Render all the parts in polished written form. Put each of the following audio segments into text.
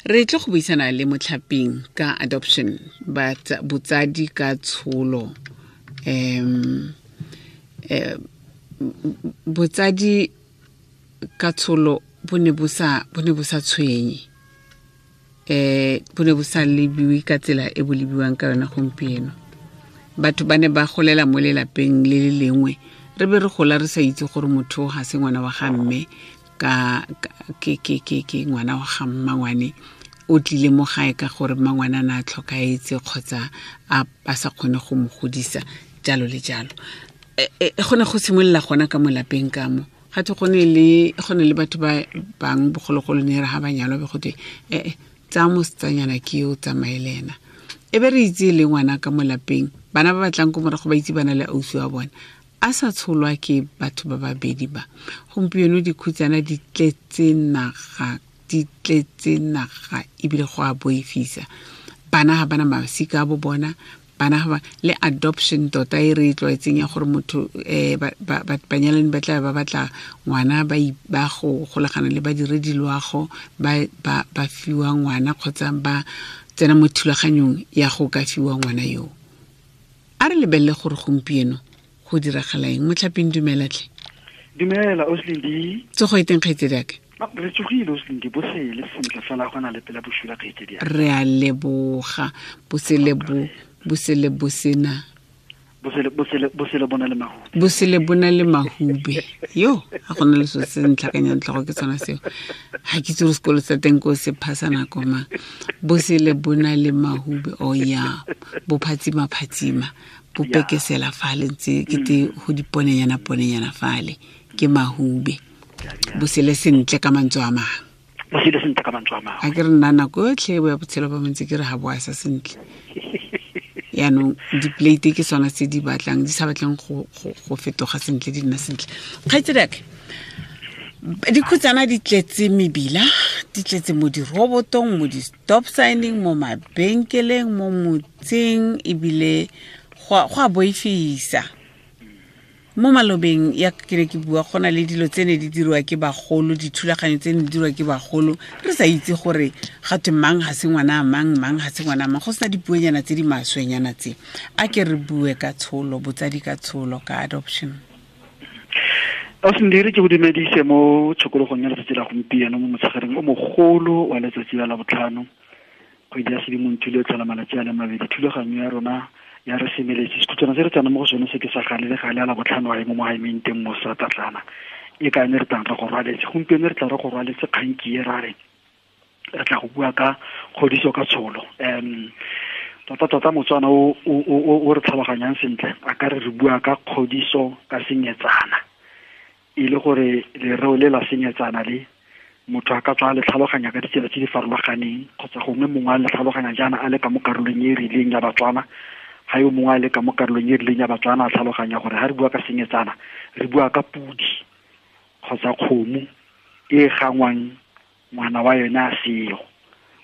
Re tle go buisana le Motlhaping ka adoption, but botsadi ka tsholo. Botsadi ka tsholo bo ne bo sa tshwenye. Bo ne bo sa lebiwe ka tsela e bo lebiwang ka yona gompieno. Batho ba ne ba golela mo lelapeng le le lengwe, re be re gola re sa itse gore motho ga se ngwana wa ga mme, ka ke ngwana wa ga mmangwane, o tlile mo gae ka gore mmangwane a ne a tlhokaetse kgotsa a sa kgone go mo godisa, jalo le jalo. Go ne go simolola gona ka mo lapeng ka mo. Ga twe go ne le batho ba bang bogologolo ne re ga ba nyalwa be go twe, tsaya mosetsanyana ke yo o tsamaye le ena. E be re itse le ngwana ka mo lapeng, bana ba batlang ko morago ba itse bana le ausi wa bona, a sa tsholwa ke batho ba babedi ba. Gompieno dikhutsana di tletse naga, di tletse naga ebile go a boifisa. Bana ga bana masika a bo bona, bana ga ba le adoption tota e re e tlwaetseng ya gore motho banyalani ba tla ba batla ngwana, ba go golagana le badiredi loago, ba fiwa ngwana kgotsa ba tsena mo thulaganyong ya go ka fiwa ngwana yo. A re lebelele gore gompieno go diragala eng. Motlhaping, dumela tlhe. Dumela Oslindi. Tsogo e teng kgaitsedi aka? Re tsogile Oslindi, bosele sentle fela go na le pela bosula kgaitsedi aka. Re a leboga. Bosele bo, bosele bo sena. Bosele, bosele, bosele bona le mahube. Bosele bona le mahube. Yo, ga gona le so se ntlhakanyang tlhogo ke tsona seo. Ha ke itse gore sekolo sa teng ko se phasa nako mang. Bosele bona le mahube. Oh ya, bo phatsima phatsima. Bo pekesela fale ntse ke te go diponenyana ponenyana fale ke mahube. Bosele sentle ka mantswe a mang. Bosele sentle ka mantswe a mang. A ke re nna nako yotlhe bo ya botshelo ba montse ke re ga bo a sa sentle. Yaanong di-plate ke sona tse di batlang, di sa batleng go fetoga sentle, di nna sentle. Kgaitsedi aka, dikhutsana di tletse mebila, di tletse mo dirobotong, mo di-stop signing, mo mabenkeleng, mo motseng, ebile go a boifisa. Mo malobeng ya ke ne ke bua, go na le dilo tse ne di dirwa ke bagolo, dithulaganyo tse ne di dirwa ke bagolo, re sa itse gore ga twe mang ga se ngwana a mang, mang ga se ngwana a mang, go sena dipuonyana tse di maswenyana tse. A ke re bue ka tsholo, botsadi ka tsholo, ka adoption. Osindiri, ke go dumedise mo tshokologong ya letsatsi la gompieno, mo motshegareng o mogolo wa letsatsi la Labotlhano, kgwedi ya Sedimonthole e tlhola malatsi a le mabedi. Thulaganyo ya rona ya re semeletse, sekhutsana se re tsena mo go sone se ke sa gale le gale a Labotlhano a e mo mogaemeng teng mo sa Tatlana, e ka ne re tlang re go rwaletse. Gompieno re tla re go rwaletse kgang ke e ra re re tla go bua ka kgodiso ka tsholo. Tota tota Motswana o re tlhaloganyang sentle a ka re re bua ka kgodiso ka senyetsana, e le gore lereo le la senyetsana le motho a ka tswa a le tlhaloganya ka ditsela tse di farologaneng, kgotsa gongwe mongwe a le tlhaloganya jaana a le ka mo karolong e e rileng ya Batswana, ga yo mongwe a le ka mo karolong e e rileng ya Batswana a tlhaloganya gore ga re bua ka senyetsana re bua ka pudi kgotsa kgomo e gangwang ngwana wa yone a seo,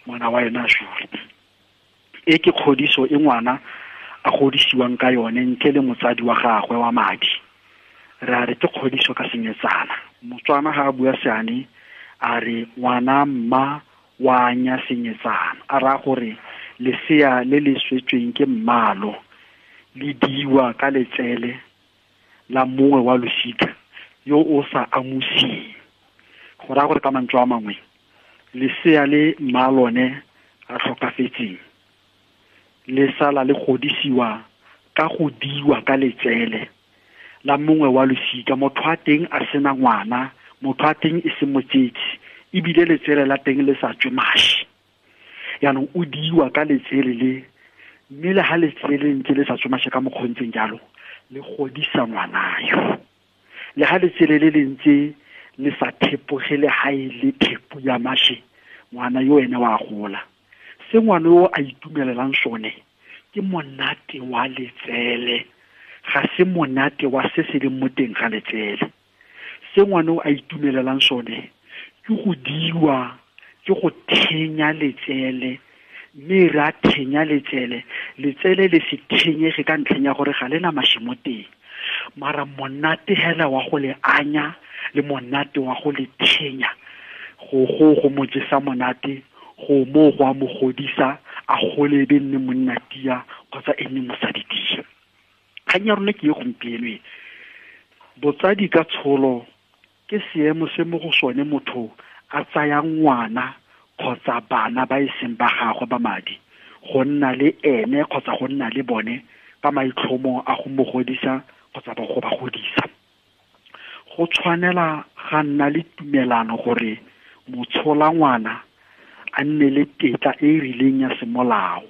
ngwana wa yone a sule. E ke kgodiso e ngwana a godisiwang ka yone ntle le motsadi wa gagwe wa madi. Re a re ke kgodiso ka senyetsana. Motswana ga a bua seane a re ngwana mma wa anya senyetsana, a raya gore lesea le le swetsweng ke mmalo le diwa ka letsele la mongwe wa losika yo o sa amusing. Go raya gore ka mantswe a mangwe lesea le mma lone a tlhokafetseng le sala le godisiwa ka go diwa ka letsele la mongwe wa losika. Motho wa teng a sena ngwana, motho wa teng e se motsetsi, ebile letsele la teng le sa tswe mashi. Yaanong o diwa ka letsele le, mme le ha letsele le ntse le sa tswe mashi ka mokgwa o ntseng jalo, le godisa ngwana yo. Le ha letsele le le ntse le sa thepoge le ha e le thepo ya mashi, ngwana yo ene wa gola. Se ngwana yo a itumelelang sone ke monate wa letsele, ga se monate wa se se leng mo teng ga letsele. Se ngwana o a itumelelang sone ke go diwa, ke go thenya letsele, mme re a thenya letsele, letsele le se thenyege ka ntlheng ya gore ga le na mashi mo teng. Mara monate hela wa go le anya le monate wa go le thenya, go go go mo jesa monate, Go mo go a mo godisa a gole e be nne monna tia kgotsa e nne mosadi tia. Kgang ya rona ke e gompieno e. Botsadi ka tsholo ke seemo se mo go sone motho a tsaya ngwana kgotsa bana ba e seng ba gagwe ba madi go nna le ene kgotsa go nna le bone ka maitlhomo a go mo godisa kgotsa ba go ba godisa. Go tshwanela ga nna le tumelano gore motshola ngwana a nne le tetla e e rileng ya semolao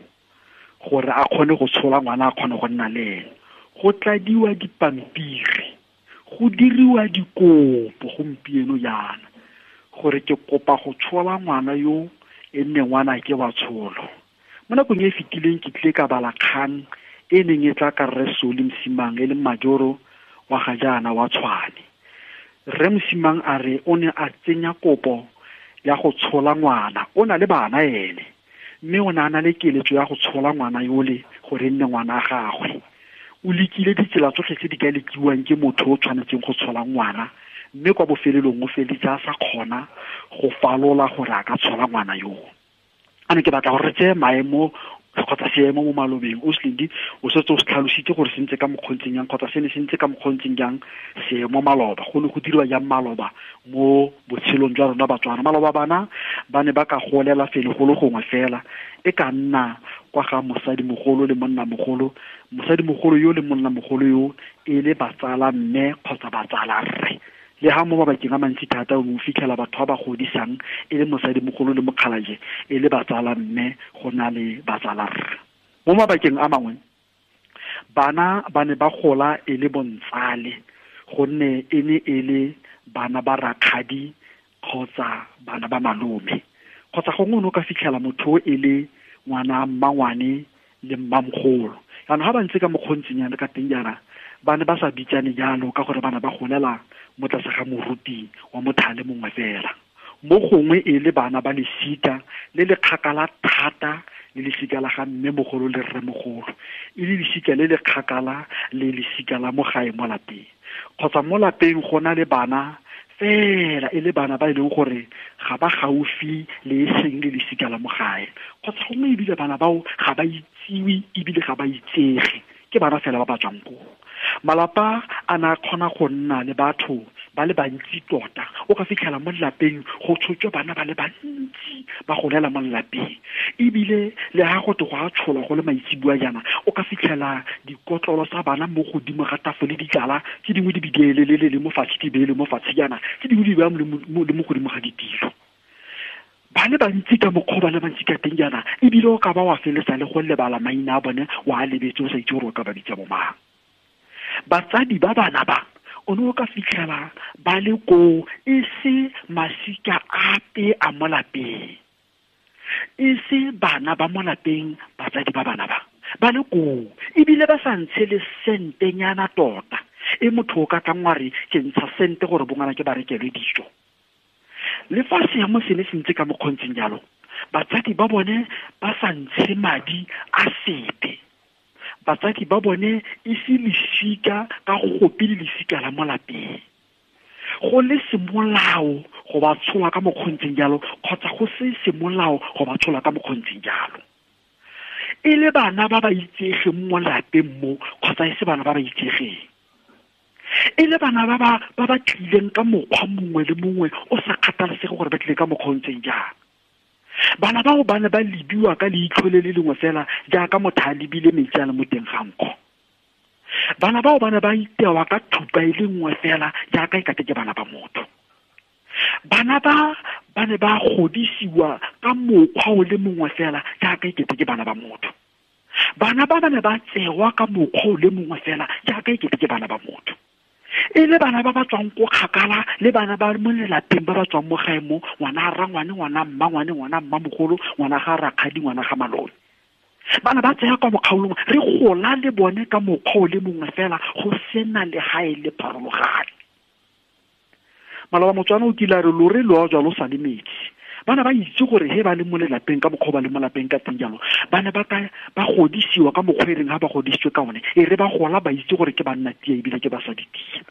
gore a kgone go tshola ngwana, a kgone go nna le ene. Go tladiwa dipampiri, go diriwa dikopo gompieno jaana gore ke kopa go tshola ngwana yo e nne ngwana ke wa tsholo. Mo nakong e e fetileng ke tlile ka bala kgang e neng e tla ka Rre Soli Mosimang e leng majoro wa ga jaana wa Tshwane. Rre Mosimang a re o ne a tsenya kopo ya go tshola ngwana, o na le bana ene, mme o ne a na le keletso ya go tshola ngwana yole gore e nne ngwana a gagwe. O lekile ditsela tsotlhe tse di ka lekiwang ke motho o tshwanetseng go tshola ngwana, mme kwa bofelelong o feleletse a sa kgona go falola gore a ka tshola ngwana yoo. A ne ke batla gore re tseye maemo kgotsa seemo mo malobeng. O Slindi o setse o se tlhalositse gore se ntse ka mokgontseng jang kgotsa se ne se ntse ka mokgontseng jang seemo maloba, go ne go dirwa jang maloba mo botshelong jwa rona Batswana. Maloba bana ba ne ba ka golela fele go le gongwe fela, e ka nna kwa ga mosadimogolo le monnamogolo, mosadimogolo yo le monnamogolo yo e le batsala mme kgotsa batsala rre. Le ha mo mabakeng a mantsi thata o fitlhela batho ba ba godisang e le mosadimogolo le mokgalaje e le batsala mme go na le batsala rre. Mo mabakeng a mangwe bana ba ne ba gola e le bontsale gonne e ne e le bana ba rakgadi kgotsa bana ba malome, kgotsa gongwe o ne o ka fitlhela motho e le ngwana mmangwane le mmamogolo. Jaanong ga ba ntse ka mokgontsinyana ka teng jaana ba ne ba sa bitsane jalo ka gore bana ba golela mo tlase ga moruti wa mothale mongwe fela. Mo gongwe e le bana ba lesika le le kgakala thata le lesika la ga mme mogolo le rre mogolo, e le lesika le le kgakala le lesika la mo gae mo lapeng, kgotsa mo lapeng go na le bana fela e le bana ba e leng gore ga ba gaufi le e seng le lesika la mo gae, kgotsa gongwe ebile bana bao ga ba itsiwe ebile ga ba itsege, ke bana fela ba ba tswang koo. Malapa a na kgona go nna le batho ba le bantsi tota, o ka fitlhela mo lelapeng go tshotswe bana ba le bantsi ba golela mo lelapeng, ebile le ha go te go a tsholwa go le maitseboa jaana o ka fitlhela dikotlolo tsa bana mo godimo ga tafole di tlala, tse dingwe di bidielelele le mo fatshe di beele mo fatshe jaana, tse dingwe di beya le mo godimo ga ditilo. Ba le bantsi ka mokgwa ba le bantsi ka teng jaana, ebile o ka ba wa feletsa le go lebala maina a bone wa a lebetse o sa itse gore o ka ba bitsa bo mang. Batsadi ba bana ba o ne o ka fitlhela ba le koo e se masika ape a mo lapeng, e se bana ba mo lapeng, batsadi ba bana ba ba le koo ebile ba sa ntshe le sentenyana tota e motho o ka tlang wa re ke ntsha sente gore bongwana ke ba rekelwe dijo. Le fa seemo se ne se ntse ka mokgontseng jalo, batsadi ba bone ba sa ntshe madi a sepe, batsadi ba bone e se lesika ka gope le lesika la mo lapeng, go le semolao go ba tshola ka mokgontseng jalo kgotsa go se semolao go ba tshola ka mokgontseng jalo, e le bana ba ba itsegeng mo lapeng mo kgotsa e se bana ba ba itsegeng, e le bana ba ba tlileng ka mokgwa mongwe le mongwe o sa kgathalesege gore ba tlile ka mokgwa o ntseng jang. Bana bao ba ne ba lebiwa ka leitlho le le lengwe fela jaaka motho a lebile metsi a le mo teng ga nkgo. Bana bao ba ne ba itewa ka thupa e le nngwe fela jaaka e kate ke bana ba motho. Bana ba ba ne ba godisiwa ka mokgwa o le mongwe fela jaaka e kete ke bana ba motho. Bana ba ba ne ba tsewa ka mokgwa o le mongwe fela jaaka e kete ke bana ba motho. E le bana ba ba tswang ko kgakala le bana ba mo lelapeng ba ba tswang mo gae mo, ngwana rangwane, ngwana mmangwane, ngwana mmamogolo, ngwana ga rakgadi, ngwana ga malome. Bana ba tsaya kwa mokgaolong, re gola le bone ka mokgwa o le mongwe fela go sena legae le pharologano. Maloba Motswana o kile a re lore lo jwa lo sa le metsi. Bana ba itse gore he ba le mo lelapeng ka mokgwa ba le mo lapeng ka teng jalo, ba ne ba ka ba godisiwa ka mokgwa e reng ha ba godisitswe ka one, e re ba gola ba itse gore ke banna tia ebile ke basadi tia.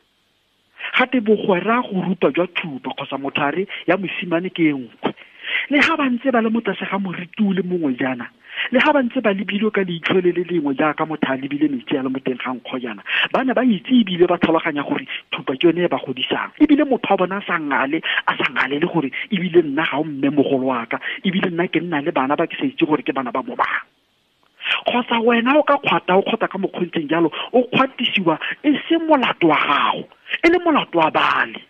Gate bogwera go rupa jwa thupa kgotsa mothare ya mosimane ke e nngwe. Le ga ba ntse ba le mo tlase ga moriti o le mongwe jaana, le ga ba ntse ba lebilwe ka leitlho le le lengwe jaaka motho a lebile metsi a le mo teng ga nkgo jaana, ba ne ba itse ebile ba tlhaloganya gore thupa ke yone e ba godisang. Ebile motho wa bona a sa ngale, a sa ngalele gore ebile nna ga o mme mogolo wa ka, ebile nna ke nna le bana ba ke sa itse gore ke bana ba mo bang. Kgotsa wena o ka kgwata, o kgwata ka mokgontseng jalo, o kgwatisiwa e se molato wa gago, e le molato wa bale.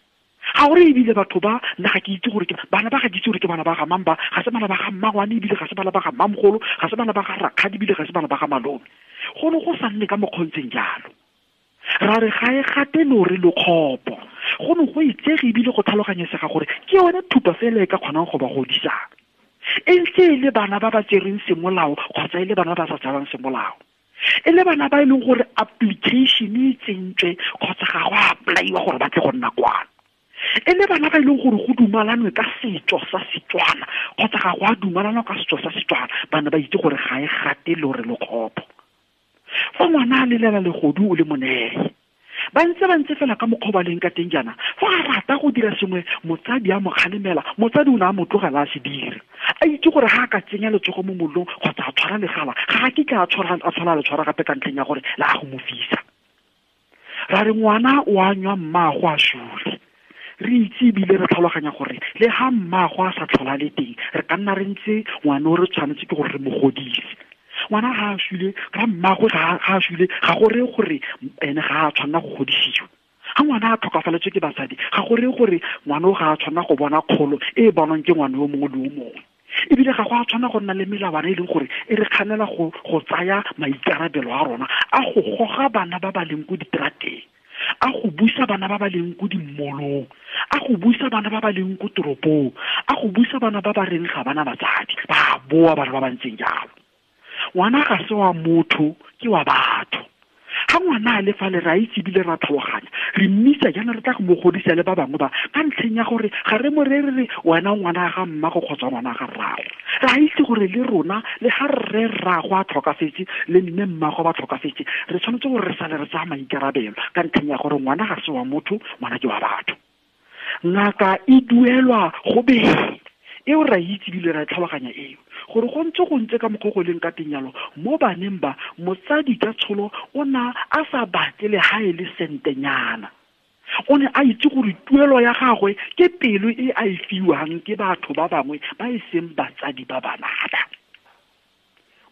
Ga gore ebile batho ba, nna ga ke itse gore ke bana ba, ga ke itse gore ke bana ba ga mang ba, ga se bana ba ga mmangwane, ebile ga se bana ba ga mmamogolo, ga se bana ba ga rakgadi, ebile ga se bana ba ga malome. Go ne go sa nne ka mokgontseng jalo. Ra re ga e gate lore lokgopo. Go ne go itsege ebile go tlhaloganyesega gore ke yone thupa fela e ka kgonang go ba godisang. E ntse e le bana ba ba tsereng semolao kgotsa e le bana ba ba sa tserang semolao. E le bana ba e leng gore application e tsentswe kgotsa ga go apply-iwa gore ba tle go nna kwano. E le bana ba e leng gore go dumalanwe ka setso sa Setswana kgotsa ga go a dumalanwa ka setso sa Setswana, bana ba itse gore ga e gate lore lokgopo. Fa ngwana a lelela legodu o le moneye, ba ntse ba ntse fela ka mokgwa ba leng ka teng jaana, fa a rata go dira sengwe, motsadi a mo kgalemela, motsadi o ne a mo tlogela a se dire. A itse gore ga a ka tsenya letsogo mo mollong kgotsa a tshwara legala, ga a kitla a tshwara, a tshwara le tshwara gape ka ntlheng ya gore la go mo fisa. Ra re ngwana o a nywa mmaago a sule. Re itse ebile re tlhaloganya gore le ga mmaago a sa tlhola le teng, re ka nna re ntse ngwana o re tshwanetse ke gore re mo godise. Ngwana ga a sule, ga mmaago ga a sule, ga go reye gore ene ga a tshwanela go godisiwa. Ga ngwana a tlhokafaletswe ke basadi, ga go reye gore ngwana o ga a tshwanela go bona kgolo e e bonwang ke ngwana yo mongwe le yo mongwe. Ebile ga go a tshwanela go nna le melawana e leng gore e re kganela go tsaya maikarabelo a rona a go goga bana ba ba leng ko diterateng, a go busa bana ba ba leng ko dimmolong, a go busa bana ba ba leng ko toropong, a go busa bana ba ba reng ga bana batsadi, ba boa bana ba ba ntseng jalo. Ngwana ga se wa motho, ke wa batho. Ga ngwana a le fale, re a itse ebile ra tlhaloganya, re mmitsa jaana re tla go mo godisa le ba bangwe ba, ka ntlheng ya gore ga re mo reye re re wena ngwana ga mmago kgotsa ngwana ga rrago. Re a itse gore le rona, le ga rre rrago a tlhokafetse, le mme mmago ba tlhokafetse, re tshwanetse gore re sale re tsaya maikarabelo ka ntlheng ya gore ngwana ga se wa motho, ngwana ke wa batho. Ngaka e duelwa go beng. Eo ra itse ebile ra tlhaloganya eo, gore go ntse go ntse ka mokgwa go leng ka teng jalo, mo baneng ba, motsadi ka tsholo o na a sa batle le ha e le sentenyana. O ne a itse gore tuelo ya gagwe ke pelo e a e fiwang ke batho ba bangwe ba e seng batsadi ba bana ba.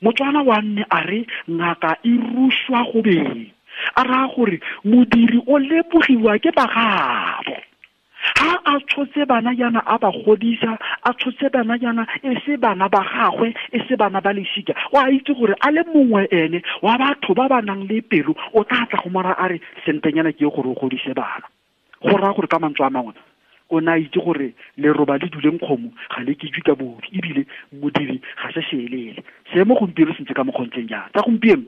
Motswana wa nne a re ngaka e ruswa go beng, a raya gore modiri o lebogiwa ke bagabo. Ha a tshotse bana jaana a ba godisa, a tshotse bana jaana e se bana ba gagwe, e se bana ba lesika, o a itse gore a le mongwe ene wa batho ba ba nang le pelo o tla tla go mora a re sentenyana ke gore o godise bana. Go raya gore ka mantswe a mangwe o ne a itse gore leroba le duleng kgomo ga le kejwe ka bobi, ebile modiri ga se seelele. Seemo gompieno se ntse ka mokgwa o ntseng jang? Tsa gompieno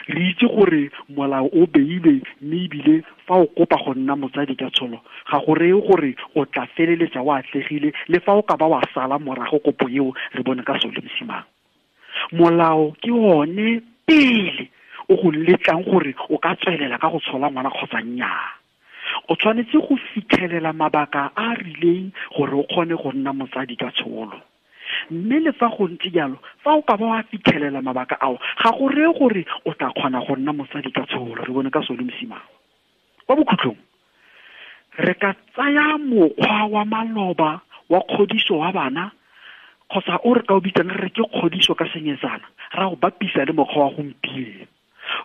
re itse gore molao o beilwe, mme ebile fa o kopa go nna motsadi ka tsholo, ga go reye gore o tla feleletsa o atlegile, le fa o ka ba wa sala morago kopo eo re bone ka sole mosimang. Molao ke one pele o go letlang gore o ka tswelela ka go tshola ngwana kgotsa nnyaa. O tshwanetse go fitlhelela mabaka a a rileng gore o kgone go nna motsadi ka tsholo. Mme le fa go ntse jalo, fa o ka ba wa fitlhelela mabaka ao, ga go reye gore o tla kgona go nna motsadi ka tsholo. Re bone ka sole mosimang. Kwa bokhutlong, re ka tsaya mokgwa wa maloba wa kgodiso wa bana, kgotsa o re ka o bitsang re re ke kgodiso ka senyetsana, ra o bapisa le mokgwa wa gompieno.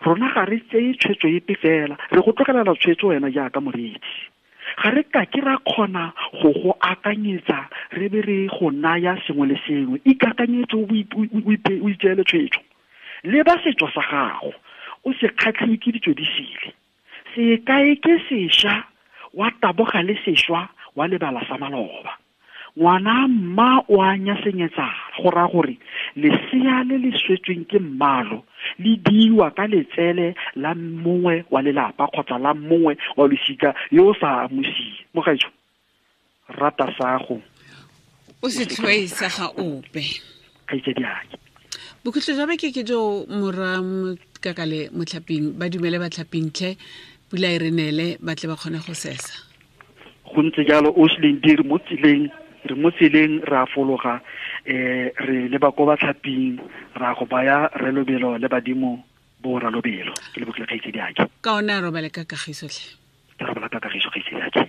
Rona ga re tseye tshwetso epe fela, re go tlogelela tshwetso wena jaaka moreetsi. Ga re ka ke ra kgona go go akanyetsa, re be re go naya sengwe le sengwe. Ikakanyetse o itseele tshwetso. Leba setso sa gago, o se kgatlhiwe ke ditso di sele. Se kae ke sešwa, wa taboga le sešwa, wa lebala sa maloba. Ngwana mma o a nyasenyetsana, go raya gore lesea le le swetsweng ke mmalo le diwa ka letsele la mongwe wa lelapa kgotsa la mongwe wa losika yo o sa amusing. Mogaetsho, rata sago, o se tlhoe sa ga ope. Kgaitsedi ake. Bokhutlo jwa beke ke jo morwa Kakale motlhaping, ba dumele batlhaping tlhe, pula e re neele, ba tle ba kgone go sesa. Go ntse jalo, o se leng dire mo tseleng Re mo tseleng, re a fologa, re leba ko batlhaping, ra go baya re lobelo le badimo bo ra lobelo. Ke lebogile, kgaitsedi ake. Ka one a robale ka kagiso tlhe. Ke robala ka kagiso, kgaitsedi ake.